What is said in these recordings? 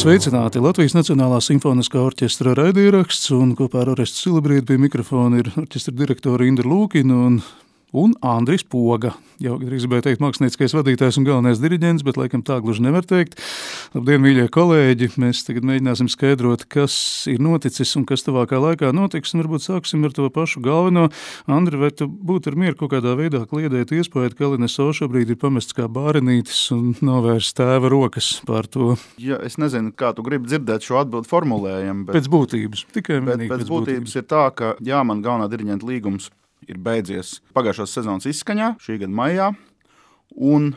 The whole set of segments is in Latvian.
Sveicināti! Latvijas Nacionālā simfoniskā orķestra raidieraksts un kopā ar Orestu Silabrieti pie mikrofona ir orķestra direktora Indra Lūkina un Andris Poga. Jau drīz gribēju teikt mākslinieckais vadītājs un galvenais diriģents, bet laikam tā gluži nevar teikt. Labdien, mīļie kolēģi! Mēs tagad mēģināsim skaidrot, kas ir noticis un kas tuvākā laikā notiks, un varbūt sāksim ar to pašu galveno. Andri, vai tu būtu ar mieru kaut kādā veidā kliedēt iespēju, ka LNSO šobrīd ir pamests kā bārenītis un novērst tēva rokas pār to? Ja, es nezinu, kā tu gribi dzirdēt šo atbildu formulējumu, bet pēc būtības, tikai vienīgi pēc būtības ir tā, ka jā, man galvenā diriģenta līgums ir beidzies pagājušās sezonas izskaņā, šī gada maijā, un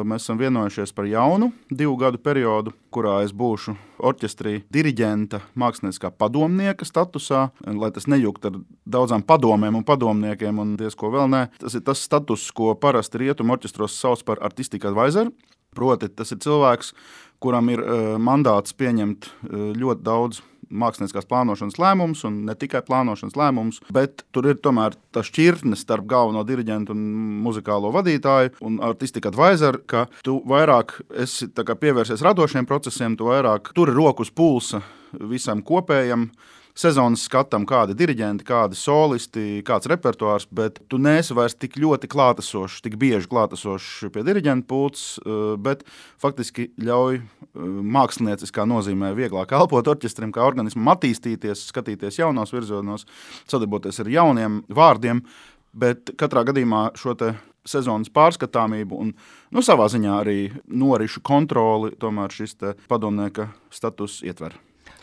mēs esam vienojušies par jaunu 2 gadu periodu, kurā es būšu orķestrī diriģenta mākslinieckā padomnieka statusā, lai tas nejukt ar daudzām padomēm un padomniekiem un diezko vēl nē. Tas ir tas status, ko parasti rietumu orķestros sauc par artistic advisor, proti tas ir cilvēks, kuram ir mandāts pieņemt ļoti daudz mākslinieckās plānošanas lēmumus un ne tikai plānošanas lēmumus, bet tur ir tomēr tā šķirtne starp galveno diriģentu un muzikālo vadītāju un artistic advisor, ka tu vairāk esi tā kā pievērsies radošiem procesiem, tu vairāk turi roku uz pulsa visam kopējam sezonas skatam, kādi diriģenti, kādi solisti, kāds repertuārs, bet tu neesi vairs tik ļoti klātesošs, tik bieži klātesošs pie diriģenta pults, bet faktiski ļauj mākslinieciskā nozīmē vieglāk elpot orķestrim, kā organismam attīstīties, skatīties jaunos virzienos, sadarboties ar jauniem vārdiem, bet katrā gadījumā šo te sezonas pārskatāmību un savā ziņā arī norišu kontroli tomēr šis te padomnieka status ietver.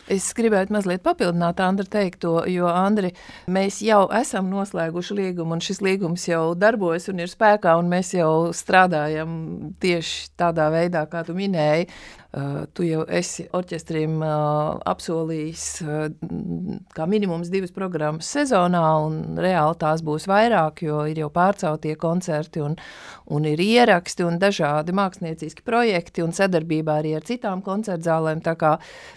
Es gribētu mazliet papildināt Andra teikto, jo, Andri, mēs jau esam noslēguši līgumu, un šis līgums jau darbojas un ir spēkā, un mēs jau strādājam tieši tādā veidā, kā tu minēji. Tu jau esi orķestrim apsolījis kā minimums 2 programmas sezonā, un reāli tās būs vairāk, jo ir jau pārceltie koncerti un ir ieraksti un dažādi mākslinieciski projekti un sadarbībā arī ar citām koncertzālēm, tā kā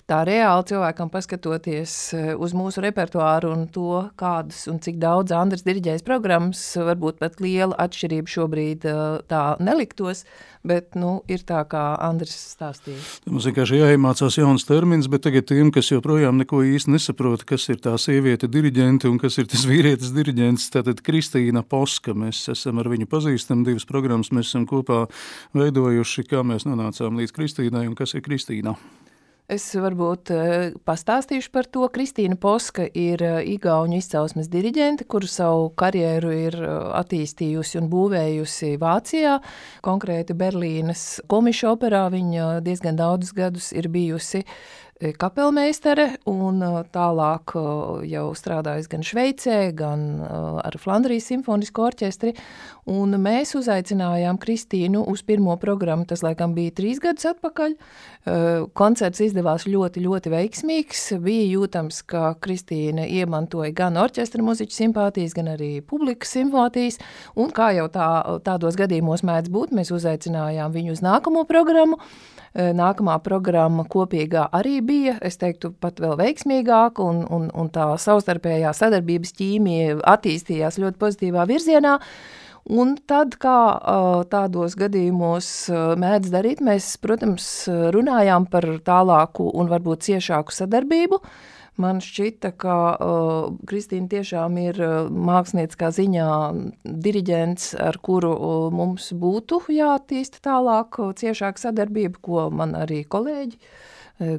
tā reāli cilvēkam paskatoties uz mūsu repertuāru un to, kādas un cik daudz Andris diriģējas programmas, varbūt pat liela atšķirība šobrīd tā neliktos, bet, ir tā, kā Andris stāstīja. Mums vienkārši jāiemācās jauns termins, bet tagad tiem, kas joprojām neko īsti nesaprot, kas ir tā sieviete diriģente un kas ir tas vīrietis diriģents, tātad Kristīna Poska. Mēs esam ar viņu pazīstam, 2 programmas mēs esam kopā veidojuši, kā mēs nonācām līdz Kristīnai un kas ir Kristīna. Es varbūt pastāstīšu par to. Kristīna Poska ir igauņu izcelsmes diriģente, kuru savu karjeru ir attīstījusi un būvējusi Vācijā, konkrēti Berlīnes Komische operā. Viņa diezgan daudzus gadus ir bijusi kapelmeistere un tālāk jau strādājusi gan Šveicē, gan ar Flandrijas simfonisko orķestri. Un mēs uzaicinājām Kristīnu uz pirmo programmu, tas laikam bija 3 gadus atpakaļ. Koncerts izdevās ļoti, ļoti veiksmīgs. Bija jūtams, ka Kristīna iemantoja gan orķestra muziķu simpātijas, gan arī publikas simpātijas. Un kā jau tādos gadījumos mēdz būt, mēs uzaicinājām viņu uz nākamo programmu. Nākamā programma kopīgā arī bija, es teiktu, pat vēl veiksmīgāk, un tā savstarpējā sadarbības ķīmija attīstījās ļoti pozitīvā virzienā. Un tad, kā tādos gadījumos mēdz darīt, mēs, protams, runājām par tālāku un varbūt ciešāku sadarbību. Man šķita, ka Kristīna tiešām ir mākslinieckā ziņā diriģents, ar kuru mums būtu jāattīsta tālāk ciešāka sadarbība, ko man arī kolēģi,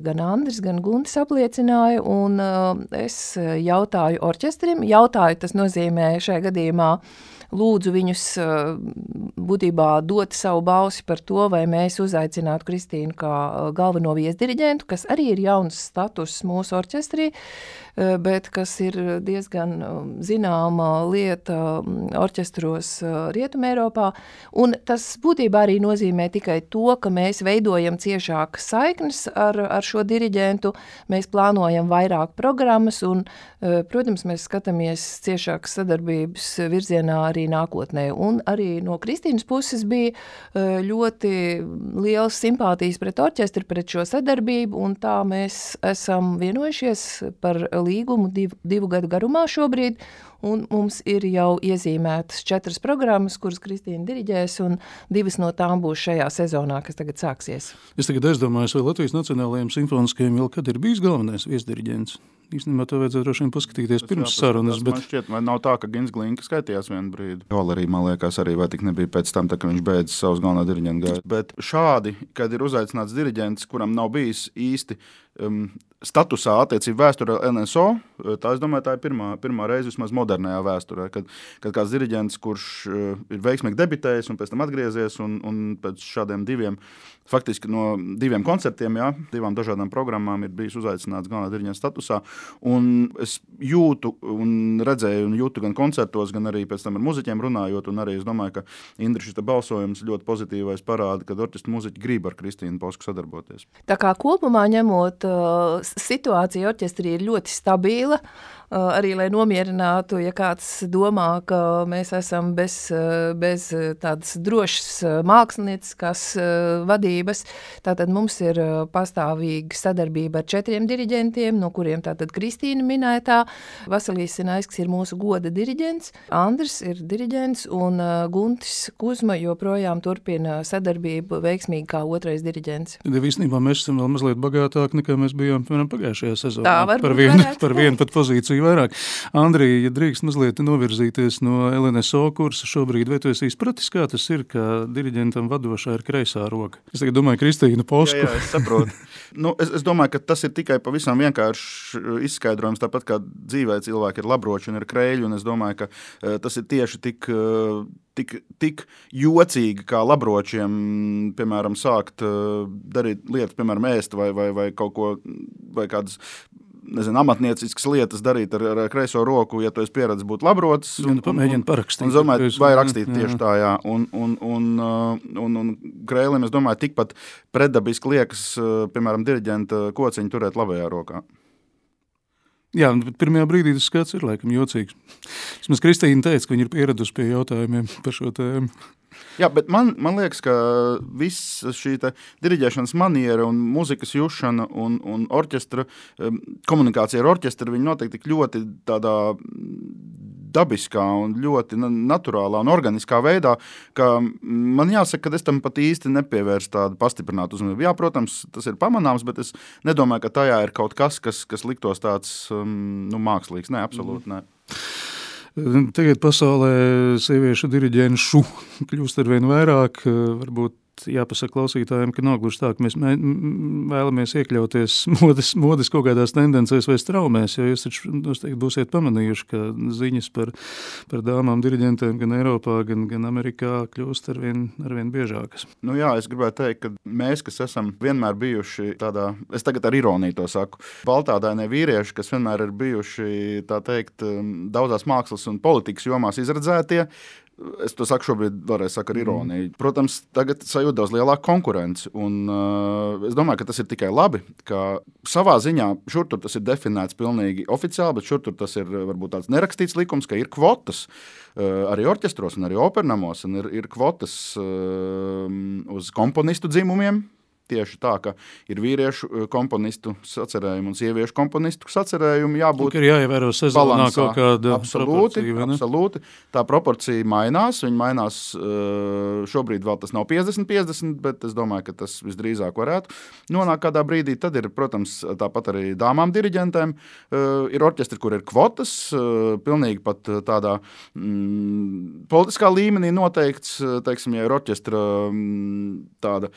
gan Andris, gan Guntis apliecināja, un es jautāju orķestrim, tas nozīmē šajā gadījumā lūdzu viņus būtībā dot savu balsi par to, vai mēs uzaicinātu Kristīnu kā galveno viesdiriģentu, kas arī ir jauns status mūsu orķestrī, bet kas ir diezgan zināma lieta orķestros Rietumē Eiropā. Un tas būtībā arī nozīmē tikai to, ka mēs veidojam ciešākas saiknes ar šo diriģentu, mēs plānojam vairāk programmas un, protams, mēs skatāmies ciešākas sadarbības virzienā arī arī nākotnē. Un arī no Kristīnas puses bija ļoti liels simpātijas pret orķestri, pret šo sadarbību, un tā mēs esam vienojušies par līgumu divu gadu garumā šobrīd, un mums ir jau iezīmētas 4 programmas, kuras Kristīna diriģēs, un 2 no tām būs šajā sezonā, kas tagad sāksies. Es tagad aizdomājos, vai Latvijas Nacionālajiem simfoniskajiem vēl kad ir bijis galvenais viesdiriģents. Īstenībā to vajadzētu droši vien paskatīties pirms sarunas. Man šķiet, vai nav tā, ka Gins Glinka skaitījās vienu brīdi. Valerija, man liekas, arī vai tik nebija pēc tam, tā, ka viņš beidz savus galvenā diriģenta gaitu. Bet šādi, kad ir uzaicināts diriģents, kuram nav bijis īsti statusā attiecību vēsturē NSO, tā es domāju, tā ir pirmā reize vismaz modernajā vēsturē, kad kāds diriģents, kurš ir veiksmīgi debitējis un pēc tam atgriezies un pēc šādiem faktiski no 2 koncertiem, 2 dažādām programmām ir bijis uzaicināts galvenā diriģenta statusā, un es jūtu un redzēju un jūtu gan koncertos, gan arī pēc tam ar muziķiem runājot, un arī es domāju, ka Indri šis balsojums ļoti pozitīvais parāda, kad orķestra muziķi grib ar Kristīnu Posku sadarboties. Tā kā kopumā ņemot, situācija orķestrī ir ļoti stabila, arī lai nomierinātu, ja kāds domā, ka mēs esam bez tādas drošas mākslinieckās vadības. Tātad mums ir pastāvīga sadarbība ar 4 diriģentiem, no kuriem tātad Kristīna minētā. Vasilijs Sinaisks ir mūsu goda diriģents, Andris ir diriģents un Guntis Kuzma joprojām turpina sadarbību veiksmīgi kā 2. diriģents. Tad īstenībā mēs esam vēl mazliet bagātāki, nekā mēs bijām pagājušajā sezonā. Tā varbūt par vienu pat pozīciju vairāk. Andrija, ja drīkst mazliet novirzīties no LNSO kursa šobrīd, vai tu esi izpratis, kā tas ir, ka diriģentam vadošā ir kreisā roka? Es tagad domāju Kristīnu Posku. Jā, es saprotu. Es domāju, ka tas ir tikai pavisam vienkārši izskaidrojums, tāpat kā dzīvē cilvēki ir labroči un ir kreļi, un es domāju, ka tas ir tieši tik jocīgi, kā labročiem, piemēram, sākt darīt lietas, piemēram, ēst vai kaut ko, vai kādas amatnieciskas lietas darīt ar kreiso roku, ja tu esi pieredzis būt labrotis. Pamēģini parakstīt. Un domāju, vai rakstīt tieši tā, jā. Un krēlim, es domāju, tikpat pretdabiski liekas, piemēram, diriģenta kociņu turēt labajā rokā. Jā, bet pirmajā brīdī tas skats ir laikam jocīgs. Vismaz Kristīna teica, ka viņa ir pieradusi pie jautājumiem par šo tēmu. Jā, bet man liekas, ka viss šī diriģēšanas maniera un muzikas jušana un orķestra, komunikācija ar orķestru, viņi noteikti tik ļoti tādā dabiskā un ļoti naturālā un organiskā veidā, ka man jāsaka, ka es tam pat īsti nepievērstu tādu pastiprinātu uzmanību. Jā, protams, tas ir pamanāms, bet es nedomāju, ka tajā ir kaut kas liktos tāds mākslīgs. Nē, absolūti nē. Tagad pasaulē sieviešu diriģenšu kļūst arvien vairāk, varbūt jāpasaka klausītājiem, ka nav gluži tā, ka mēs vēlamies iekļauties modes kaut kādās tendencēs vai straumēs, jo jūs taču noteikti būsiet pamanījuši, ka ziņas par dāmām diriģentēm gan Eiropā, gan Amerikā kļūst arvien biežākas. Jā, es gribētu teikt, ka mēs, kas esam vienmēr bijuši tādā, es tagad ar ironiju to saku, baltādainie vīrieši, kas vienmēr ir bijuši, tā teikt, daudzās mākslas un politikas jomās izredzētie, es to saku šobrīd vēlreiz saku ar ironiju. Protams, tagad sajūt daudz lielāku konkurenci, un es domāju, ka tas ir tikai labi, ka savā ziņā šur tur tas ir definēts pilnīgi oficiāli, bet šur tur tas ir varbūt tāds nerakstīts likums, ka ir kvotas arī orķestros un arī opernamos, un ir kvotas uz komponistu dzimumiem. Tieši tā, ka ir vīriešu komponistu sacerējumi un sieviešu komponistu sacerējumi jābūt ir jāievēro sezonā kaut kāda proporcija. Absolūti. Tā proporcija mainās. Viņa mainās šobrīd vēl tas nav 50-50, bet es domāju, ka tas visdrīzāk varētu nonākt kādā brīdī. Tad ir, protams, tāpat arī dāmām diriģentēm. Ir orķestri, kur ir kvotas, pilnīgi pat tādā politiskā līmenī noteikts, teiksim, ja ir orķestra tāda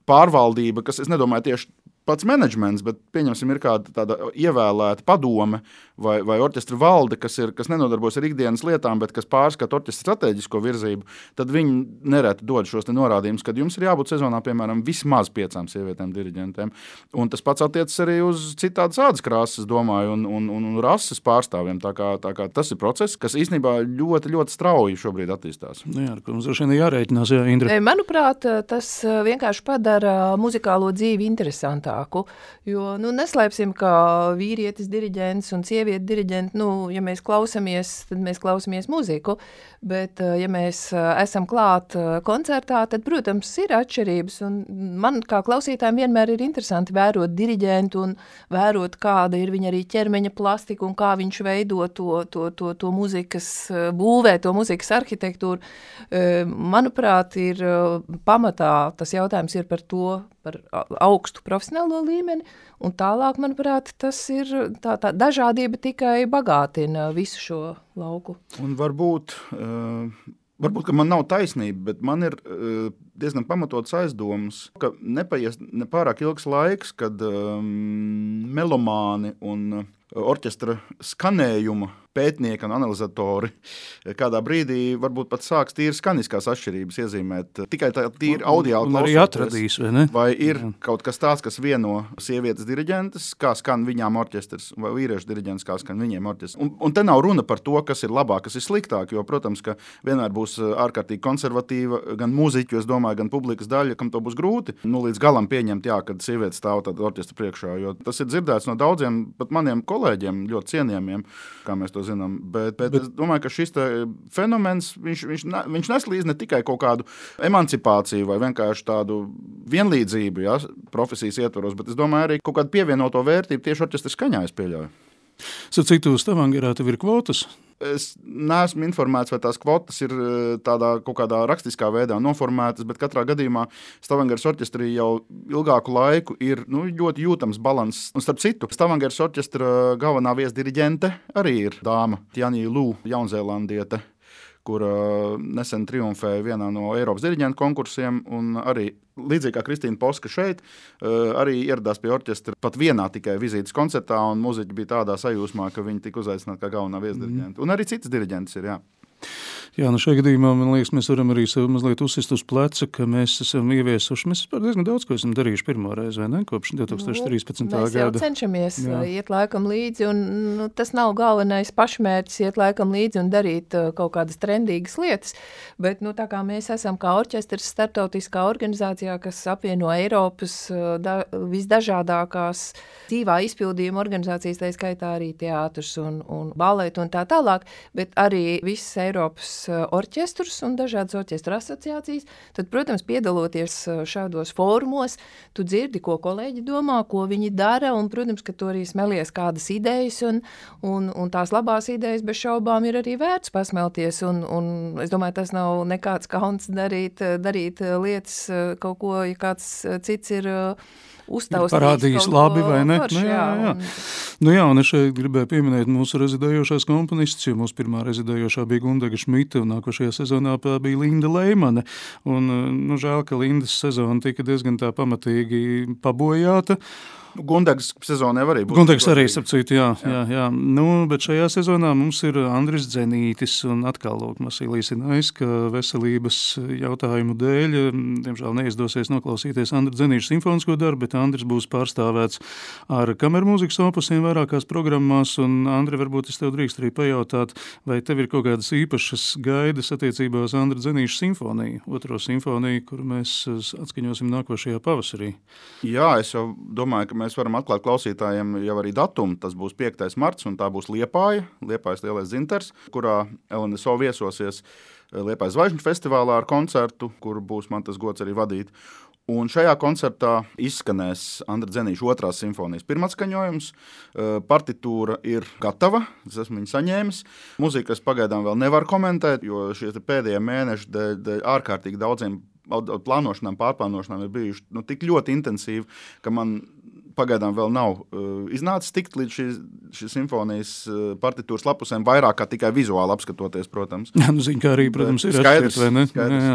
pārvaldība, kas, es nedomāju, tieši pats menedžments, bet pieņemsim, ir kāda tāda ievēlēta padome vai orķestra valde, kas nenodarbojas ar ikdienas lietām, bet kas pārskata orķestra strateģisko virzību, tad viņi nereti dod šos norādījumus, kad jums ir jābūt sezonā, piemēram, vismaz 5 sievietēm diriģentēm. Un tas pats attiecas arī uz citādas ādas krāsas, domāju, un rases pārstāvjiem. Tā kā tas ir process, kas īstenībā ļoti, ļoti strauji šobrīd attīstās. Jā, ar ko mums droši vien jārēķinās, jā, Indra. Manuprāt, tas vienkārši padara muzikālo dzīvi interesantāku. vairāku, jo, neslēpsim, ka vīrietis diriģents un sievieti diriģenti, ja mēs klausamies, tad mēs klausamies muziku, bet, ja mēs esam klāt koncertā, tad, protams, ir atšķirības, un man kā klausītājiem vienmēr ir interesanti vērot diriģentu un vērot, kāda ir viņa arī ķermeņa plastika un kā viņš veido to muzikas būvē, to muzikas arhitektūru. Manuprāt, ir pamatā tas jautājums ir par augstu profesionālo līmeni, un tālāk, manuprāt, tas ir tā dažādība tikai bagātina visu šo lauku. Un varbūt, ka man nav taisnība, bet man ir diezgan pamatots aizdomas, ka nepaies nepārāk ilgs laiks, kad melomāni un orķestra skanējuma pētnieki un analizatori kādā brīdī varbūt pat sāks tīri skaniskās atšķirības iezīmēt. Tikai tā tīri audiāli klausoties. Un arī atradīs, vai ne? Vai ir kaut kas tāds, kas vieno sievietes diriģentes, kā skan viņām orķestrs, vai vīriešu diriģents, kā skan viņiem orķestrs. Un te nav runa par to, kas ir labāk, kas ir sliktāk, jo, protams, ka vienmēr būs ārkārtīgi konservatīva gan mūziķu, es domāju, gan publikas daļa, kam to būs grūti līdz galam pieņemt, kad sievietes stāv tādā orķestra priekšā, jo tas ir dzirdēts no daudziem, pat maniem kolēģiem, ļoti cienījamiem, kā mēs to zinām, bet es domāju, ka šis fenomens, viņš neslīdz ne tikai kaut kādu emancipāciju vai vienkārši tādu vienlīdzību, profesijas ietvaros, bet es domāju arī kaut kādu pievienoto vērtību tieši orķestra skaņā, es pieļauju. Citu Stavangerā tev ir kvotas? Es neesmu informēts, vai tās kvotas ir tādā kaut kādā rakstiskā veidā noformētas, bet katrā gadījumā Stavangeras orķestrī jau ilgāku laiku ir ļoti jūtams balanss. Un starp citu, Stavangeras orķestra galvenā viesdiriģente arī ir dāma Tjani Lū, jaunzēlandiete, kura nesen triumfēja vienā no Eiropas diriģentu konkursiem, un arī līdzīgi kā Kristīna Poska šeit, arī ieradās pie orķestra pat vienā tikai vizītes koncertā, un muziķi bija tādā sajūsmā, ka viņi tika uzaicināti kā galvenā viesdiriģenta. Un arī citas diriģentes ir, Jā, šajā gadījumā, man liekas, mēs varam arī sev mazliet uzsist uz pleca, ka mēs esam ieviesuši, mēs diezgan daudz, ko esam darījuši pirmo reizi, vai ne, kopš 2013. gada. Mēs jau cenšamies iet laikam līdzi, un tas nav galvenais pašmērķis iet laikam līdzi un darīt kaut kādas trendīgas lietas, bet, tā kā mēs esam kā orķestrs starptautiskā organizācijā, kas apvieno Eiropas visdažādākās dzīvā izpildījuma organizācijas, tā skaitā arī teātrs un baletu un tā tālāk, bet arī visas Eiropas orķestrus un dažādas orķestra asociācijas, tad, protams, piedaloties šādos fórumos, tu dzirdi, ko kolēģi domā, ko viņi dara, un, protams, ka tu arī smelies kādas idejas, un tās labās idejas bez šaubām ir arī vērts pasmelties, un es domāju, tas nav nekāds kauns darīt lietas kaut ko, ja kāds cits ir uztaustījis parādījis labi vai ne? Forši, jā. Un es šeit gribēju pieminēt mūsu rezidējošās komponistus, jo mūsu pirmā rezidējošā bija Gundega Šmita, un nākošajā sezonā bija Linda Leimane. Un, žēl, ka Lindas sezona tika diezgan tā pamatīgi pabojāta. Gundegas sezonā arī būs. Gundegas arī, sapcīt, jā. Bet šajā sezonā mums ir Andris Dzenītis un atkal Masīlijs Inais, ka veselības jautājumu dēļ, diemžēl neizdosies noklausīties Andra Dzenīša simfonisko darbu, bet Andris būs pārstāvēts ar kamermūzikas opusiem vairākās programmās, un Andri, varbūt es tev drīkst arī pajautāt, vai tev ir kaut kādas īpašas gaidas attiecībā uz Andra Dzenīša simfoniju, otro simfoniju, kuru mēs atskaņosim nākošajā pavasarī? Jā, es jau domāju, ka mēs varam atklāt klausītājiem jau arī datumu. Tas būs 5. marts, un tā būs Liepājas lielais dzintars, kurā LNSO viesosies Liepājas Zvaigžņu festivālā ar koncertu, kuru būs man tas gods arī vadīt. Un šajā koncertā izskanēs Andra Dzenīša 2. simfonijas pirmatskaņojums. Partitūra ir gatava, es esmu viņu saņēmis. Muziku es pagaidām vēl nevaru komentēt, jo šie pēdējie mēneši dēļ ārkārtīgi daudziem plānošanām, pārplānošanām ir bijuši tik ļoti intensīvi, ka man pagaidām vēl nav iznācis tikt līdz šīs simfonijas partitūras lapusēm, vairāk kā tikai vizuāli apskatoties, protams. Zin, kā arī, protams, ir atšķirt, vai ne? Jā.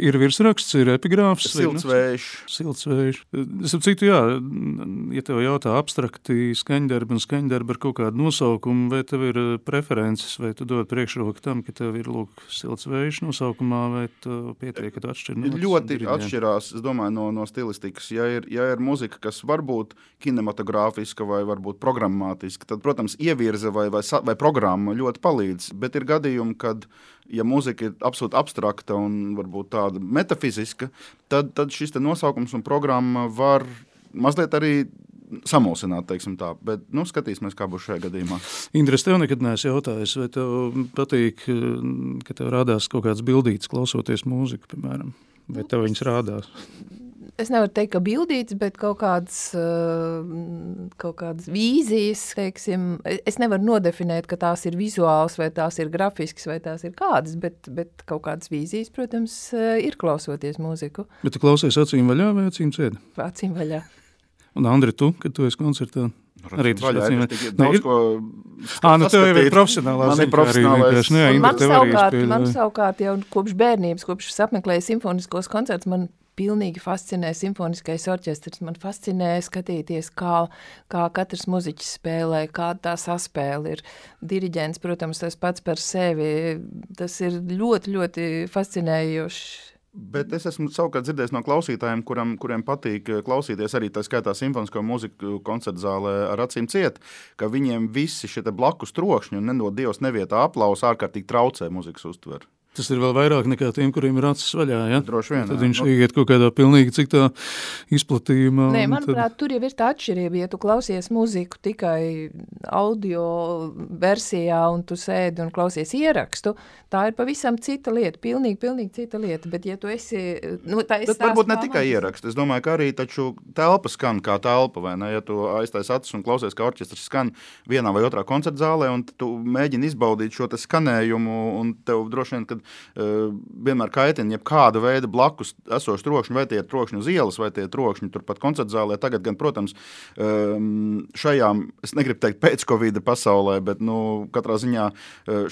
Ir virsraksts, ir epigrāfs. Siltsvējš. Es ap citu, ja tev jautā abstrakti skaņdarbi un skaņdarbi ar kaut kādu nosaukumu, vai tev ir preferences, vai tu dod priekšroku tam, ka tev ir, Siltsvējš nosaukumā, vai tu pietiek, ka tu atšķir? Ļoti atšķirās, es domāju, no stilistikas. Ja ir muzika, kas varbūt kinematogrāfiska vai varbūt programmātiska, tad, protams, ievirze vai programma ļoti palīdz, bet ir gadījumi, kad, ja muzika ir absolūti abstrakta un varbūt tāda metafiziska, tad šis te nosaukums un programma var mazliet arī samulsināt, teiksim tā, bet, skatīsimies, kā būs šajā gadījumā. Indra, es tev nekad neesmu jautājis, vai tev patīk, ka tev rādās kaut kāds bildītis klausoties mūziku, piemēram, vai tev viņas rādās? Es nevaru teikt, ka bildīts, bet kaut kādas vīzijas, teiksim, es nevaru nodefinēt, ka tās ir vizuāls, vai tās ir grafisks, vai tās ir kādas, bet kaut kādas vīzijas, protams, ir klausoties mūziku. Bet tu klausies acīm vaļā vai acīm ciet? Acīm vaļā. Un Andri, tu, kad tu esi koncertā? Arī tas vaļā, acīm ir daudz ko tev jau ir profesionālā Man savukārt jau kopš bērnības, kopš es apmeklēju simfoniskos koncertus, man pilnīgi fascinē simfoniskais orķestrs. Man fascinē skatīties, kā katrs muziķis spēlē, kāda tā saspēle ir. Diriģents, protams, tas pats par sevi. Tas ir ļoti, ļoti fascinējoši. Bet es esmu savukārt dzirdējis no klausītājiem, kuriem patīk klausīties arī tā skaitā simfonisko mūziku koncertu zālē ar acīm ciet, ka viņiem visi šie blakus trokšņi un nedod Dievs nevietā aplausa ārkārtīgi traucē mūzikas uztveru. Tas ir vēl vairāk nekā tiem, kuriem ir acis vaļā, ja? Droši vien, tad viņš iet kaut kādā pilnīgi citā izplatījumā. Nē, manuprāt, tur jau ir tā atšķirība, ja tu klausies mūziku tikai audio versijā un tu sēdi un klausies ierakstu, tā ir pavisam cita lieta, pilnīgi cita lieta, bet ja tu esi... Bet varbūt ne tikai ierakstu, es domāju, ka arī taču telpa skan kā telpa, vai ne? Ja tu aiztais acis un klausies, kā orķestrs skan vienā vai otrā koncerta zālē, un tu mēģini izbaudīt šo te skanējumu, un tev droši vien, kad vienmēr kaitina jebkāda veida blakus esoši trokšņi, vai tie ir trokšņi uz ielas, vai tie ir trokšņi turpat koncerta zālē. Tagad gan, protams, šajā, es negribu teikt pēc Covid pasaulē, bet katrā ziņā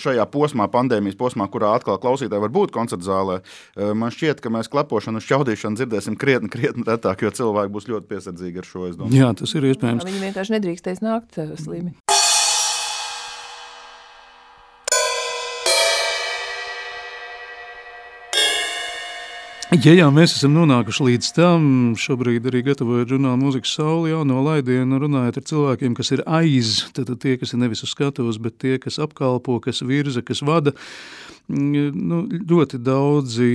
šajā posmā, pandēmijas posmā, kurā atkal klausītāji var būt koncerta zālē, man šķiet, ka mēs klepošanu un šķaudīšanu dzirdēsim krietni retāk, jo cilvēki būs ļoti piesardzīgi ar šo, es domāju. Jā, tas ir iespējams. Viņi vienkārši nedrīkstēs nākt slimi. Ja mēs esam nonākuši līdz tam, šobrīd arī gatavojot žurnālu Mūzikas Saule jauno laidienu, runājot ar cilvēkiem, kas ir aiz, tad tie, kas ir nevis uz skatuves, bet tie, kas apkalpo, kas virza, kas vada, ļoti daudzi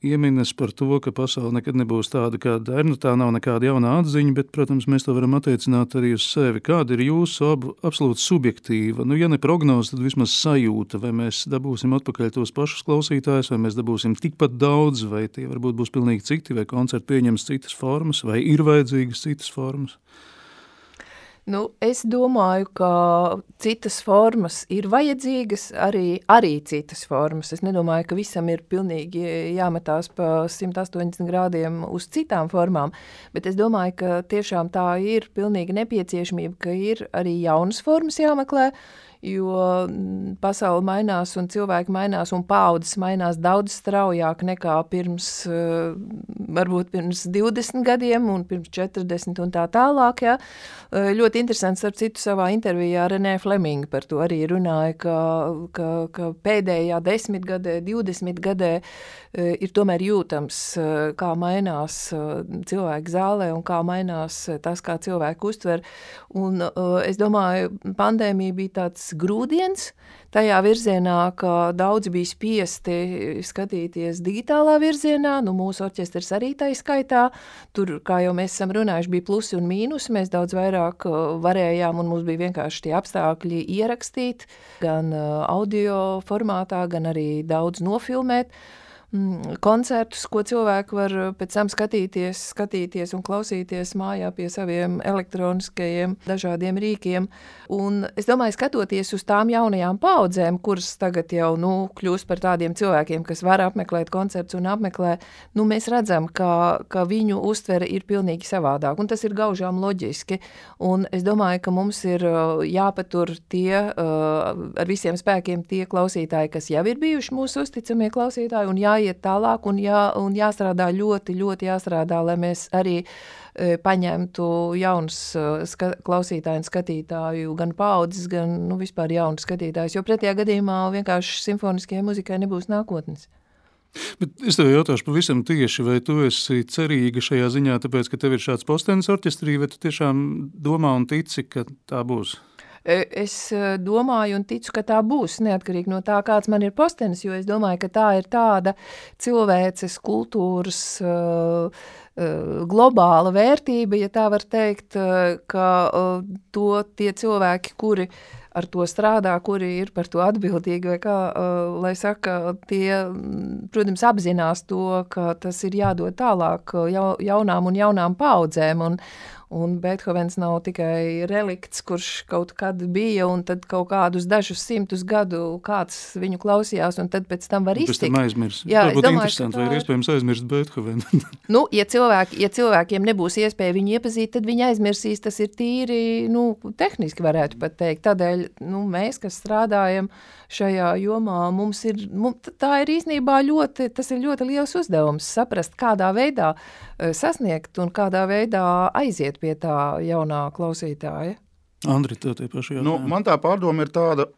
ieminas par to, ka pasaule nekad nebūs tāda, kāda ir. Tā nav nekāda jauna atziņa, bet, protams, mēs to varam attiecināt arī uz sevi. Kāda ir jūsu absolūti subjektīva, ja ne prognoze, tad vismaz sajūta, vai mēs dabūsim atpakaļ tos pašus klausītājus, vai mēs dabūsim tikpat daudz, vai tie varbūt būs pilnīgi citi, vai koncerti pieņems citas formas, vai ir vajadzīgas citas formas? Es domāju, ka citas formas ir vajadzīgas, arī citas formas. Es nedomāju, ka visam ir pilnīgi jāmetās pa 180 grādiem uz citām formām, bet es domāju, ka tiešām tā ir pilnīgi nepieciešamība, ka ir arī jaunas formas jāmeklē, jo pasaule mainās un cilvēki mainās un paaudzes mainās daudz straujāk nekā varbūt pirms 20 gadiem un pirms 40 un tā tālāk. Ja. Ļoti interesants, starp citu, savā intervijā Renē Fleminga par to arī runāja, ka pēdējā 10 gadē, 20 gadē ir tomēr jūtams, kā mainās cilvēki zālē un kā mainās tas, kā cilvēki uztver. Un es domāju, pandēmija bija tāds grūdiens tajā virzienā, ka daudzi bija spiesti skatīties digitālā virzienā, mūsu orķestrs arī tā skaitā. Tur, kā jau mēs esam runājuši, bija plusi un mīnusi, mēs daudz vairāk varējām un mums bija vienkārši tie apstākļi ierakstīt, gan audio formātā, gan arī daudz nofilmēt. Koncertus, ko cilvēki var pēc tam skatīties un klausīties mājā pie saviem elektroniskajiem dažādiem rīkiem. Un es domāju, skatoties uz tām jaunajām paaudzēm, kuras tagad jau kļūst par tādiem cilvēkiem, kas var apmeklēt koncertus un apmeklē, mēs redzam, ka viņu uztvere ir pilnīgi savādāk. Un tas ir gaužām loģiski. Un es domāju, ka mums ir jāpatur ar visiem spēkiem tie klausītāji, kas jau ir bijuši mūsu uzticamie klausītāji, un jāiet tālāk un jāstrādā ļoti, ļoti jāstrādā, lai mēs arī paņemtu jaunus klausītāju un skatītāju, gan paaudzes, gan vispār jaunus skatītājus, jo pretējā gadījumā vienkārši simfoniskajai muzikai nebūs nākotnes. Bet es tev jautāšu pavisam tieši, vai tu esi cerīga šajā ziņā, tāpēc, ka tev ir šāds postenis orķestrī, vai tu tiešām domā un tici, ka tā būs? Es domāju un ticu, ka tā būs neatkarīgi no tā, kāds man ir postenis, jo es domāju, ka tā ir tāda cilvēces kultūras globāla vērtība, ja tā var teikt, ka to tie cilvēki, kuri ar to strādā, kuri ir par to atbildīgi, vai kā, lai saka, tie, protams, apzinās to, ka tas ir jādod tālāk jaunām paudzēm, un Beethovens nav tikai relikts, kurš kaut kad bija, un tad kaut kādus dažus simtus gadu kāds viņu klausījās, un tad pēc tam var iztikt. Pēc tam aizmirst. Jā, tā būtu interesanti, vai ir iespējams aizmirst Beethovenu. Nu, ja cilvēkiem nebūs iespēja viņu iepazīt, tad viņi aizmirsīs, tas ir tīri, tehniski varētu pat teikt. Tādēļ, mēs, kas strādājam šajā jomā, tā ir īstenībā tas ir ļoti liels uzdevums saprast, kādā veidā sasniegt un kādā veidā aiziet pie tā jaunā klausītāja. Andri, tev tie paši jautājumi. Man tā pārdoma ir tāda,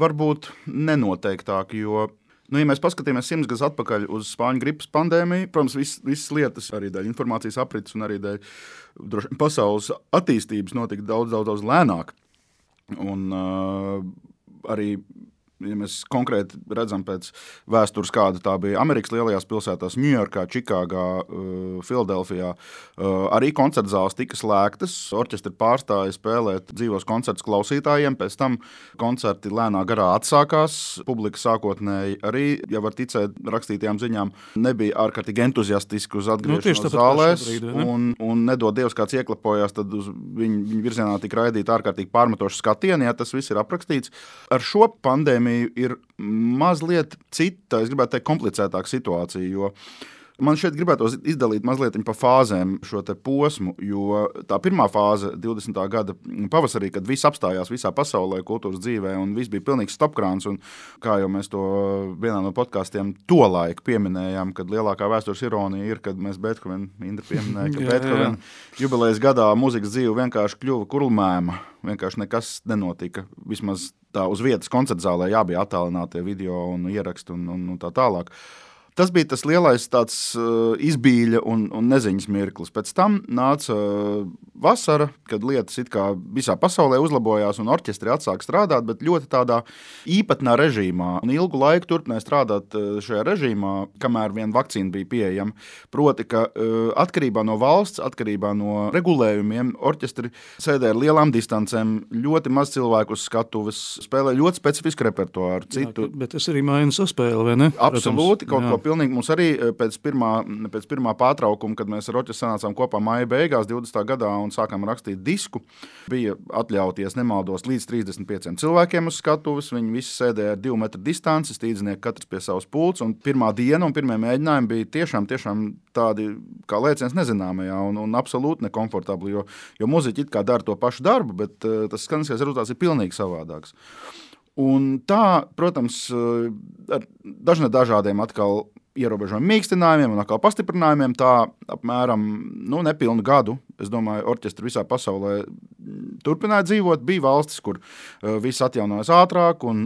varbūt nenoteiktāka, jo, ja mēs paskatīmies 100 gadus atpakaļ uz spāņu gripas pandēmiju, protams, visas lietas, arī dēļ informācijas aprits un arī dēļ pasaules attīstības notika daudz lēnāk. Un arī, ja mēs konkrēti redzam pēc vēstures, kāda tā bija Amerikas lielajās pilsētās, Ņujorkā, Čikāgā, Filadelfijā, arī koncertzāles tika slēgtas, orķestri pārstāja spēlēt dzīvos koncertus klausītājiem, pēc tam koncerti lēnā garā atsākās, publika sākotnēji arī, ja var ticēt rakstītajām ziņām, nebija ārkārtīgi entuziastiski uz atgriešanos zālēs, un nedod Dievs kāds ieklapojās, tad uz viņu virzienā tika raidīta ārkārtīgi pārmetoša skatieni, ja tas viss ir aprakstīts. Ar šo pandēmiju ir mazliet cita, es gribētu teikt, komplicētāka situācija, jo man šeit gribētos izdalīt mazliet pa fāzēm šo te posmu, jo tā pirmā fāze 20. gada pavasarī, kad viss apstājās visā pasaulē, kultūras dzīvē, un viss bija pilnīgs stopkrāns, un kā jau mēs to vienā no podkastiem tolaik pieminējām, kad lielākā vēstures ironija ir, kad mēs Indra pieminēja, ka Beethoven jubilejas gadā mūzikas dzīve vienkārši kļuva kurlmēma, vienkārši nekas nenotika, vismaz tā uz vietas koncertzālē jābija attālinātie video un ieraksti un tā tālāk. Tas bija tas lielais tāds izbīļa un neziņas mirklis. Pēc tam nāca vasara, kad lietas it kā visā pasaulē uzlabojās un orķestri atsāk strādāt, bet ļoti tādā īpatnā režīmā. Un ilgu laiku turpināja strādāt šajā režīmā, kamēr vien vakcīna bija pieejama. Proti, ka atkarībā no valsts, atkarībā no regulējumiem, orķestri sēdē ar lielām distancēm, ļoti maz cilvēku uz skatuves, spēlē ļoti specifisku repertuāru. Jā, bet tas arī maina saspēli, vai ne? Absolūti, kaut ko pilnīgi. Mums arī pēc pirmā pārtraukuma, kad mēs ar orķestri sanācām kopā māja beigās 20. gadā un sākām rakstīt disku, bija atļauties, nemaldos, līdz 35 cilvēkiem uz skatuves. Viņi visi sēdēja ar 2 metru distanci, stīdznieki katrs pie savas pults, un pirmā diena un pirmie mēģinājumi bija tiešām tādi kā lēciens nezināmajā un absolūti nekomfortabli, jo muziķi it kā dara to pašu darbu, bet tas skaniskais rezultāts ir pilnīgi savādāks. Un tā, protams, ar dažādiem atkal ierobežojumiem mīkstinājumiem un atkal pastiprinājumiem, tā apmēram nepilnu gadu, es domāju, orķestri visā pasaulē turpināja dzīvot. Bija valstis, kur viss atjaunojas ātrāk un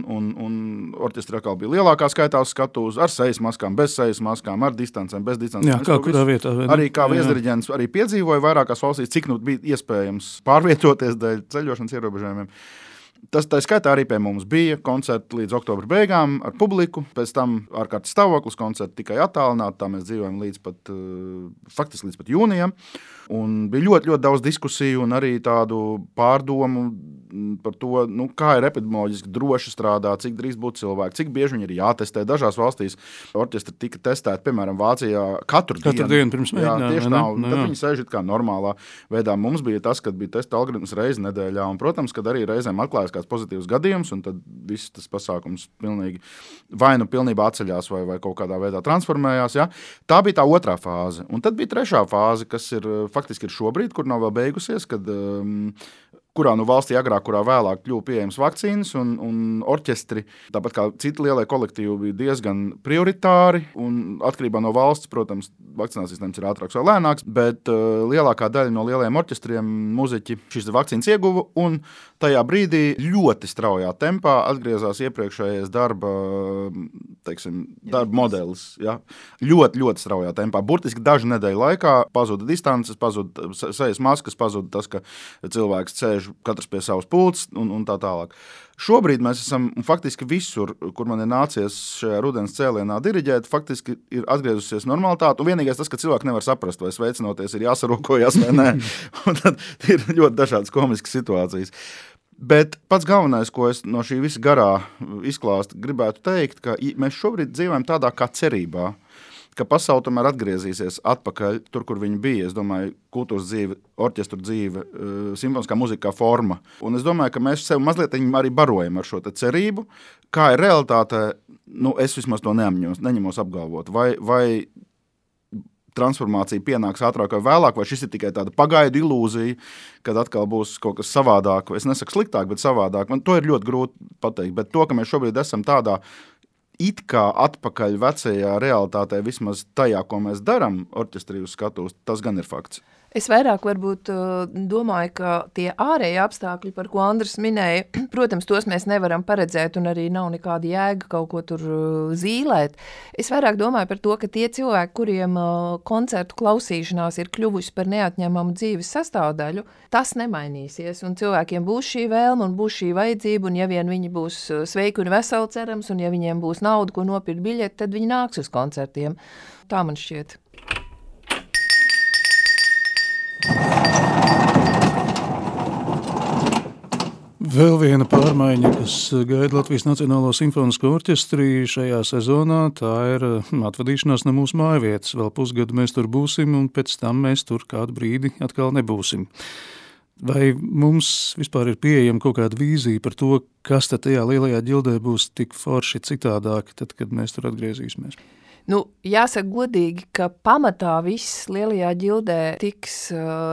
orķestri atkal bija lielākā skaitā uz skatuves, ar sejas maskām, bez sejas maskām, ar distancēm, bez distancēm. Jā, kā kurā vietā. Arī kā viesdiriģents arī piedzīvoja vairākās valstīs, cik bija iespējams pārvietoties dēļ ceļošanas ierobežojumiem. Tas tā skaitā arī pie mums bija koncerti līdz oktobra beigām ar publiku, pēc tam ārkārtas stāvoklis, koncerti tikai attālināti, tā mēs dzīvojam faktiski līdz pat jūnijam. Un bija ļoti, ļoti daudz diskusiju un arī tādu pārdomu par to, kā ir epidemioloģiski droši strādāt, cik drīz būtu cilvēki, cik bieži viņi ir jātestē. Dažās valstīs orķestri tika testēti, piemēram, Vācijā katru dienu pirms mēģinājuma. Tieši tā, un tad viņi sēž kā normālā veidā. Mums bija tas, kad bija testa algoritms reizi nedēļā, un, protams, kad arī reizēm atklājas kāds pozitīvs gadījums, un tad viss tas pasākums pilnīgi vai pilnībā atceļās vai kaut kādā veidā transformējās. Ja? Tā bija tā otrā fāze. Un tad bija trešā fāze, kas ir faktiski ir šobrīd, kur nav vēl beigusies, kurā valstī agrāk, kurā vēlāk kļuva pieejams vakcīnas, un orķestri, tāpat kā citi lielie kolektīvi, bija diezgan prioritāri, un atkarībā no valsts, protams, vakcinācijas sistēmas ir ātrāks vai lēnāks, bet lielākā daļa no lielajiem orķestriem muziķi šīs vakcīnas ieguva, un tajā brīdī ļoti straujā tempā atgriezās iepriekšējais darba modelis. Ja? Ļoti, ļoti straujā tempā. Burtiski dažu nedēļu laikā pazuda distances, pazuda sejas maskas, pazuda tas, ka cilvēks sēž sēž katrs pie savas pults un tā tālāk. Šobrīd mēs esam faktiski visur, kur man ir nācies šajā rudens cēlienā diriģēt, faktiski ir atgriezusies normalitāte. Un vienīgais tas, ka cilvēki nevar saprast, vai sveicinoties ir jāsarokojas vai nē. Un tad ir ļoti dažādas komiskas situācijas. Bet pats galvenais, ko es no šī visa garā izklāsta gribētu teikt, ka mēs šobrīd dzīvojam tādā kā cerībā, ka pasaule tomēr atgriezīsies atpakaļ tur, kur viņi bija. Es domāju, kultūras dzīve, orķestru dzīve, simfoniskā muzika kā forma. Un es domāju, ka mēs sev mazliet arī barojam ar šo te cerību. Kā ir realitāte, es vismaz to neņemos apgalvot. Vai transformācija pienāks ātrāk vai vēlāk, vai šis ir tikai tāda pagaidu ilūzija, kad atkal būs kaut kas savādāk. Es nesaku sliktāk, bet savādāk. Man to ir ļoti grūti pateikt. Bet to, ka mēs šobrīd esam tādā it kā atpakaļ vecajā realitātē, vismaz tajā, ko mēs daram orķestrī uz skatuves, tas gan ir fakts. Es vairāk varbūt domāju, ka tie ārēji apstākļi, par ko Andris minēja, protams, tos mēs nevaram paredzēt un arī nav nekāda jēga kaut ko tur zīlēt. Es vairāk domāju par to, ka tie cilvēki, kuriem koncertu klausīšanās ir kļuvusi par neatņemamu dzīves sastāvdaļu, tas nemainīsies un cilvēkiem būs šī vēlme un būs šī vajadzība un ja vien viņi būs sveiki un veseli cerams un ja viņiem būs nauda, ko nopirkt biļeti, tad viņi nāks uz koncertiem. Tā man šķiet. Vēl viena pārmaiņa, kas gaida Latvijas Nacionālo simfonisko orķestri šajā sezonā, tā ir atvadīšanās no mūsu mājvietas. Vēl pusgadu mēs tur būsim, un pēc tam mēs tur kādu brīdi atkal nebūsim. Vai mums vispār ir pieejama kaut kāda vīzija par to, kas tad tajā lielajā ģildē būs tik forši citādāk, tad, kad mēs tur atgriezīsimies? Jāsaka godīgi, ka pamatā viss lielajā ģildē tiks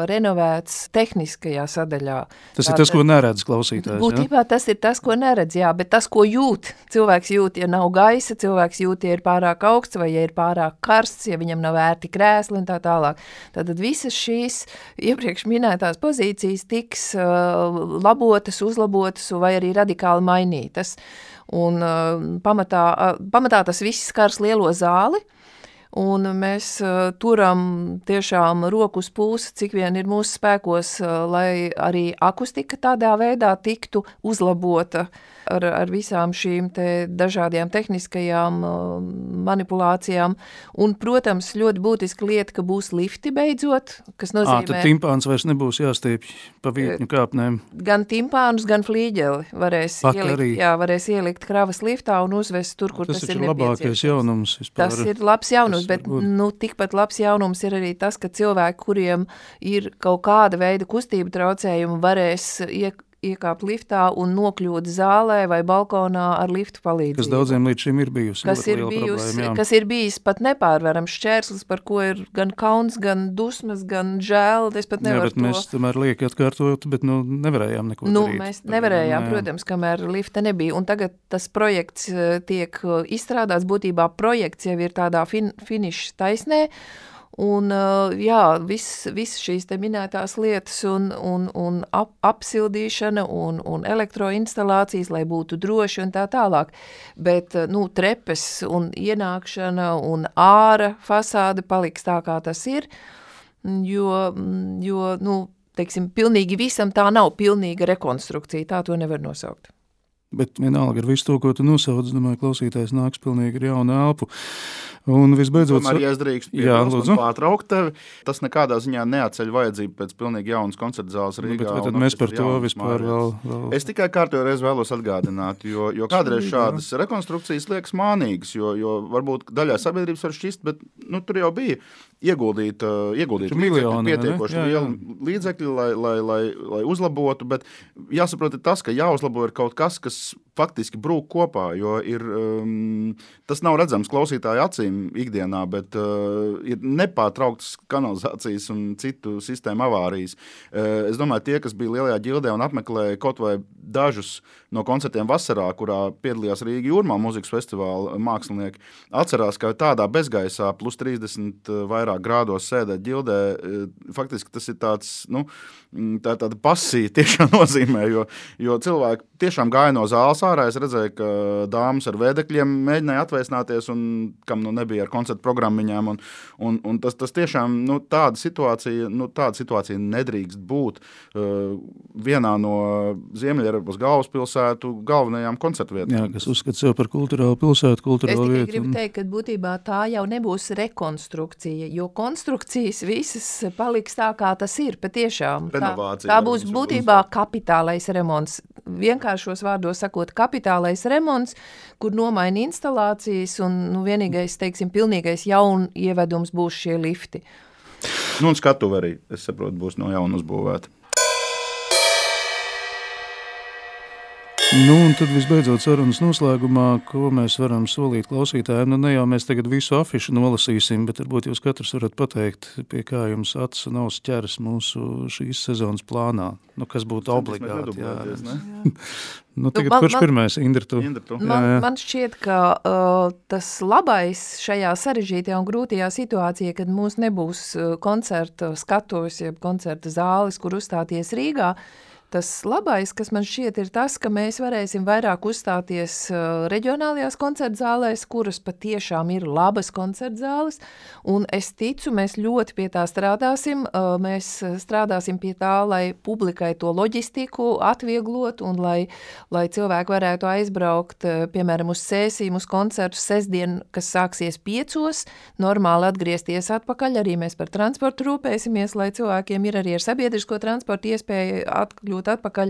renovēts tehniskajā sadaļā. Tas ir tas, ko neredz klausītājs, būtībā tas ir tas, ko neredz, jā, bet tas, ko jūt. Cilvēks jūt, ja nav gaisa, cilvēks jūt, ja ir pārāk augsts vai ja ir pārāk karsts, ja viņam nav ērti krēsli un tā tālāk. Tātad visas šīs iepriekš minētās pozīcijas tiks labotas, uzlabotas vai arī radikāli mainītas. Un pamatā tas viss skars lielo zāli, un mēs turam tiešām roku uz pulsa, cik vien ir mūsu spēkos, lai arī akustika tādā veidā tiktu uzlabota ar visām šīm te dažādajām tehniskajām manipulācijām. Un, protams, ļoti būtiska lieta, ka būs lifti beidzot, kas nozīmē... Tad timpāns vairs nebūs jāstiepj pa vietņu kāpnēm. Gan timpānus, gan flīģeli varēs ielikt kravas liftā un uzvest tur, kur tas ir nepieciešams. Tas ir labākais jaunums vispār. Tas ir labs jaunums, bet tikpat labs jaunums ir arī tas, ka cilvēki, kuriem ir kaut kāda veida kustība traucējumi, varēs iekāpt liftā un nokļūt zālē vai balkonā ar liftu palīdzību. Kas daudziem līdz šim ir bijusi. Kas ir bijis pat nepārvarams šķērslis, par ko ir gan kauns, gan dusmas, gan žēl. Es pat nevaru bet mēs tomēr lieki atkārtot, bet nevarējām neko darīt. Mēs nevarējām, protams, kamēr lifta nebija. Un tagad tas projekts tiek izstrādāts, būtībā projekts jau ir tādā finiša taisnē. Un viss šīs te minētās lietas un apsildīšana un elektroinstalācijas, lai būtu droši un tā tālāk. Bet, trepes un ienākšana un āra fasāde paliks tā, kā tas ir, jo teiksim, pilnīgi visam tā nav pilnīga rekonstrukcija, tā to nevar nosaukt. Bet vienalga ar visu to, ko tu nosauc, domāju, klausītājs nāks pilnīgi ar jaunu elpu. Un visbeidzot... Tomēr, ja es drīkst pārtraukt tevi, tas nekādā ziņā neatceļ vajadzību pēc pilnīgi jaunas koncerta zāles Rīgā. Bet tad mēs par to vispār vēl... Es tikai kārtējo reizi vēlos atgādināt, jo kādreiz šādas rekonstrukcijas liekas mānīgas, jo varbūt daļai sabiedrības var šķist, bet tur jau bija ieguldīt pietiekoši lielu līdzekļu, lai uzlabotu, bet jāsaprot ir tas, ka jāuzlabo ir kaut kas faktiski brūk kopā, jo tas nav redzams klausītāju acīm ikdienā, bet ir nepārtrauktas kanalizācijas un citu sistēmu avārijas. Es domāju, tie, kas bija lielajā ģildē un apmeklēja kaut vai dažus no koncertiem vasarā, kurā piedalījās Rīga Jūrmā mūzikas festivāla mākslinieki, atcerās, ka tādā bezgaisā plus 30 vairāk grādos sēdēt ģildē, faktiski tas ir tāds, tā tāda pasija tiešām nozīmē, jo cilvēki tiešām gāju no zāles ārā. Es redzēju, ka dāmas ar vēdekļiem mēģināja atvēsināties, un kam nebija ar koncertu programmiņām. Un tas tiešām tāda situācija nedrīkst būt vienā no Ziemeļeiropas galvaspilsētu galvenajām koncertu vietām. Jā, kas uzskata sev par kulturālu pilsētu, kulturālu vietu. Es tikai gribu teikt, ka būtībā tā jau nebūs rekonstrukcija, jo konstrukcijas visas paliks tā, kā tas ir patiešām. Tā būs būtībā kapitālais remonts. Vienkāršos vārdos sakot, kapitālais remonts, kur nomaina instalācijas un vienīgais, teiksim, pilnīgais jaun ievedums būs šie lifti. Un skatuve arī, es saprotu, būs no jauna uzbūvēta. Un tad visbeidzot sarunas noslēgumā, ko mēs varam solīt klausītājiem. Ne jau mēs tagad visu afišu nolasīsim, bet varbūt jūs katrs varat pateikt, pie kā jums acis un auss ķeras mūsu šīs sezonas plānā. Kas būtu obligāti. Tagad kurš pirmais? Indra, tu? Man šķiet, ka tas labais šajā sarežģītajā un grūtajā situācijā, kad mums nebūs koncerta skatuves, jeb koncerta zāles, kur uzstāties Rīgā, tas labais, kas man šķiet, ir tas, ka mēs varēsim vairāk uzstāties reģionālajās koncertzālēs, kuras patiešām ir labas koncertzāles, un es ticu, mēs ļoti pie tā strādāsim. Mēs strādāsim pie tā, lai publikai to loģistiku atvieglot, un lai cilvēki varētu aizbraukt, piemēram, uz sēsīm, uz koncertu sestdien, kas sāksies 5, normāli atgriezties atpakaļ. Arī mēs par transportu rūpēsimies, lai cilvēkiem ir arī ar sabiedrisko transportu iespēja atkļūt atpakaļ,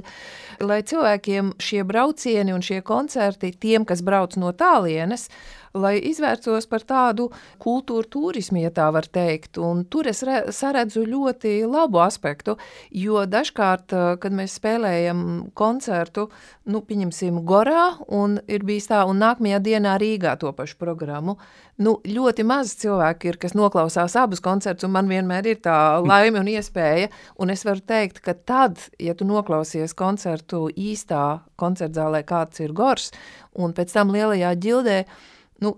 lai cilvēkiem šie braucieni un šie koncerti, tiem, kas brauc no tālienes, lai izvērtos par tādu kultūru turismu, ja tā var teikt. Un tur es saredzu ļoti labu aspektu, jo dažkārt, kad mēs spēlējam koncertu, pieņemsim Gorā, un ir bijis tā, un nākamajā dienā Rīgā to pašu programmu, ļoti maz cilvēki ir, kas noklausās abus koncertus, un man vienmēr ir tā laime un iespēja, un es varu teikt, ka tad, ja tu noklausies koncertu īstā koncertzālē, kāds ir Gors, un pēc tam lielajā ģildē,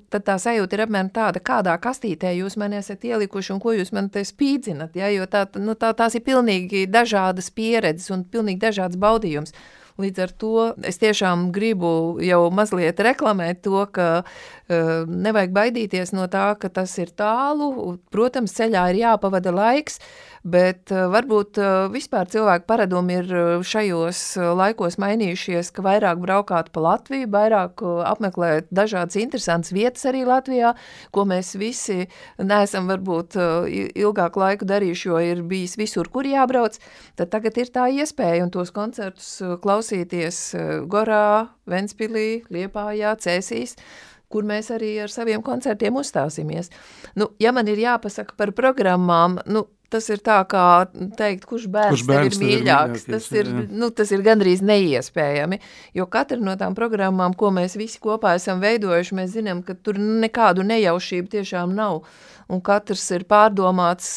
tad tā sajūta ir apmēram tāda, kādā kastītē jūs mani esat ielikuši un ko jūs man te spīdzinat, ja? Jo tās ir pilnīgi dažādas pieredzes un pilnīgi dažāds baudījums. Līdz ar to es tiešām gribu jau mazliet reklamēt to, ka nevajag baidīties no tā, ka tas ir tālu. Protams, ceļā ir jāpavada laiks, bet varbūt vispār cilvēku paradumi ir šajos laikos mainījušies, ka vairāk braukāt pa Latviju, vairāk apmeklēt dažādas interesantas vietas arī Latvijā, ko mēs visi neesam varbūt ilgāku laiku darījuši, jo ir bijis visur, kur jābrauc. Tad tagad ir tā iespēja un tos koncertus klausīties Gorā, Ventspilī, Liepājā, Cēsīs, kur mēs arī ar saviem koncertiem uzstāsimies. Ja man ir jāpasaka par programmām, tas ir tā kā teikt, kurš bērns tev ir mīļāks. Tas ir gandrīz neiespējami, jo katra no tām programmām, ko mēs visi kopā esam veidojuši, mēs zinām, ka tur nekādu nejaušību tiešām nav. Un katrs ir pārdomāts,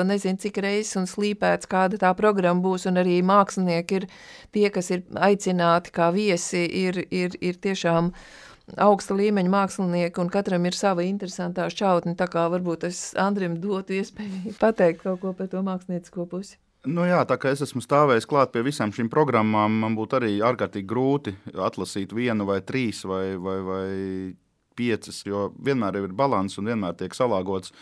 nezinu, cik reizes un slīpēts, kāda tā programma būs, un arī mākslinieki ir tie, kas ir aicināti kā viesi, ir tiešām augsta līmeņa mākslinieki, un katram ir sava interesantā šķautne, tā kā varbūt es Andrim dotu iespēju pateikt kaut ko par to māksliniecisko pusi. Tā kā es esmu stāvējis klāt pie visām šīm programmām, man būtu arī ārkārtīgi grūti atlasīt 1 vai 3 vai 5, jo vienmēr ir balans un vienmēr tiek salāgots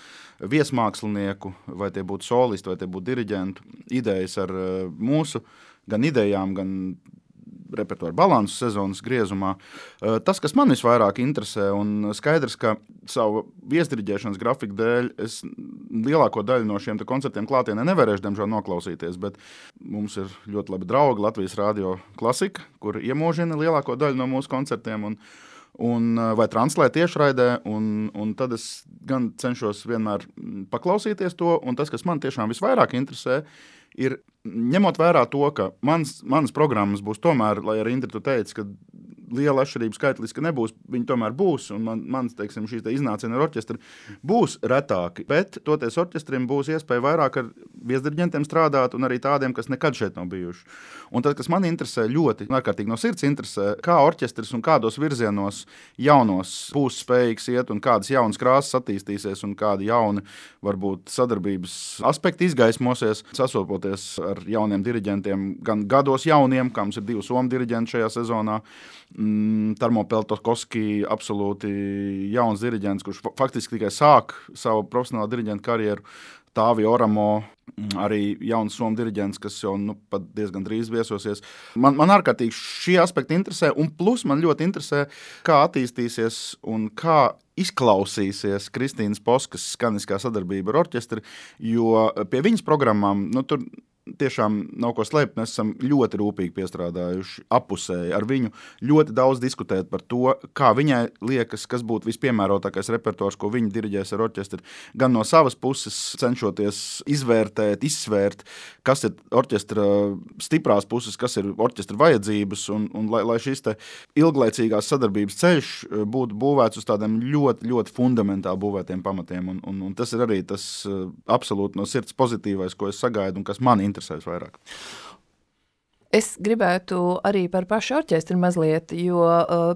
viesmākslinieku, vai tie būtu solisti, vai tie būtu diriģentu idejas ar mūsu gan idejām, gan repertuāru balansu sezonas griezumā. Tas, kas man visvairāk interesē, un skaidrs, ka savu viesdiriģēšanas grafiku dēļ es lielāko daļu no šiem koncertiem klātienē nevarēšu, diemžēl, noklausīties, bet mums ir ļoti labi draugi Latvijas Radio Klasika, kur iemūžina lielāko daļu no mūsu koncertiem vai translē tiešraidē, un tad es gan cenšos vienmēr paklausīties to, un tas, kas man tiešām visvairāk interesē, ir ņemot vērā to, ka manas programmas būs tomēr, lai arī Indra tu teici, ka liela atšķirība skaitliski nebūs, viņi tomēr būs, un mans, šīs iznācieni ar orķestri būs retāki, bet toties orķestrim būs iespēja vairāk ar viesdiriģentiem strādāt, un arī tādiem, kas nekad šeit nav bijuši. Un tad, kas man interesē ļoti, ārkārtīgi no sirds interesē, kā orķestris un kādos virzienos jaunos būs spējīgs iet, un kādas jaunas krāsas attīstīsies, un kādi jauni, varbūt, sadarbības aspekti izgaismosies, sasopoties ar jauniem diriģentiem, gan gados jauniem, kā mums ir 2 somu diriģenti šajā sezonā. Tarmo Peltokoski, absolūti jauns diriģents, kurš faktiski tikai sāk savu profesionālo diriģentu karjeru. Tāvi Oramo, arī jauns somu diriģents, kas jau pat diezgan drīz viesosies. Man ārkārtīgi šie aspekti interesē, un plus man ļoti interesē, kā attīstīsies un kā izklausīsies Kristīnas Poskas skaniskā sadarbība ar orķestri, jo pie viņas programmām, tur tiešām nav ko slēpt, mēs esam ļoti rūpīgi piestrādājuši apusēji ar viņu, ļoti daudz diskutēt par to, kā viņai liekas, kas būtu vispiemērotākais repertuārs, ko viņa diriģēs ar orķestri, gan no savas puses cenšoties izvērtēt, izsvērt, kas ir orķestra stiprās puses, kas ir orķestra vajadzības, un lai šis te ilglaicīgās sadarbības ceļš būtu būvēts uz tādiem ļoti, ļoti fundamentāli būvētiem pamatiem, un tas ir arī tas absolūti no sirds pozitīvais, ko es sagaidu un kas man interesēs vairāk. Es gribētu arī par pašu orķestri mazliet, jo,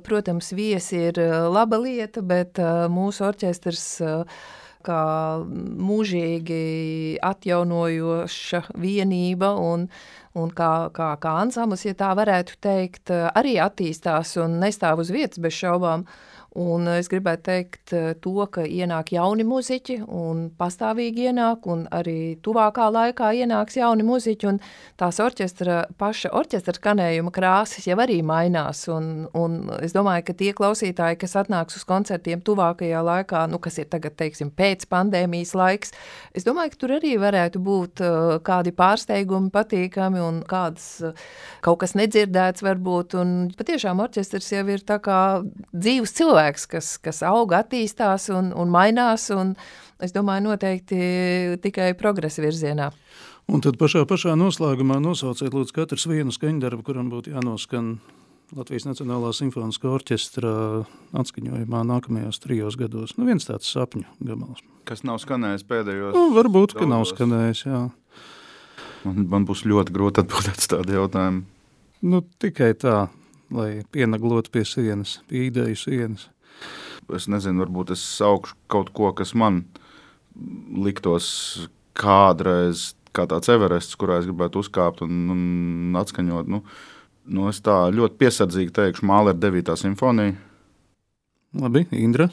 protams, viesi ir laba lieta, bet mūsu orķestrs kā mūžīgi atjaunojoša vienība un kā ansamblis, ja tā varētu teikt, arī attīstās un nestāv uz vietas bez šaubām. Un es gribētu teikt to, ka ienāk jauni muziķi un pastāvīgi ienāk, un arī tuvākā laikā ienāks jauni muziķi, un tās paša orķestra skanējuma krāsas jau arī mainās, un es domāju, ka tie klausītāji, kas atnāks uz koncertiem tuvākajā laikā, kas ir tagad, teiksim, pēc pandēmijas laiks, es domāju, ka tur arī varētu būt kādi pārsteigumi patīkami un kādas kaut kas nedzirdēts varbūt, un patiešām orķestrs jau ir tā kā dzīves cilvēks, kas auga, attīstās un mainās, un es domāju noteikti tikai progresa virzienā. Un tad pašā noslēgumā nosauciet lūdzu katrs vienu skaņdarbu, kuram būtu jānoskan Latvijas Nacionālā simfoniskā orķestra atskaņojumā nākamajos 3 gados. Viens tāds sapņu gabals. Kas nav skanējis pēdējos? Varbūt, ka nav skanējis, jā. Man būs ļoti grūti atbildēt uz tādu jautājumu. Tikai tā, lai pienaglotu pie sienas, pie ideju sienas. Es nezinu, varbūt es saukšu kaut ko, kas man liktos kādreiz kā tāds Everests, kurā es gribētu uzkāpt un atskaņot. Es tā ļoti piesardzīgi teikšu Mālera 9. simfonija. Labi, Indra.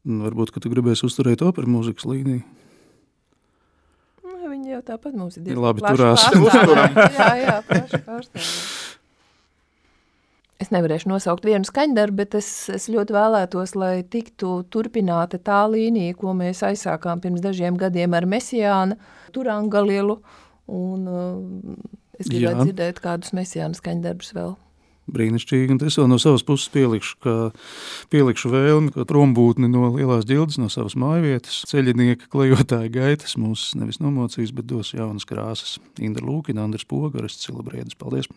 Varbūt, ka tu gribēsi uzturēt operu mūzikas līniju. Viņi jau tāpat mums ir labi turās. Jā, plaši pārstāvjā. Es nevarēšu nosaukt vienu skaņdarbu, bet es ļoti vēlētos, lai tiktu turpināta tā līnija, ko mēs aizsākām pirms dažiem gadiem ar Mesijāna, Turangalielu, un es gribētu dzirdēt kādus Mesijāna skaņdarbus vēl. Brīnišķīgi, un es vēl no savas puses pielikšu vēlmi, ka prombūtni no Lielās Ģildes, no savas mājvietas, ceļinieka klejotāja gaitas mūs nevis nomocīs, bet dos jaunas krāsas. Indra Lūkina, Andris Poga, Orests Cilabriedis. Paldies!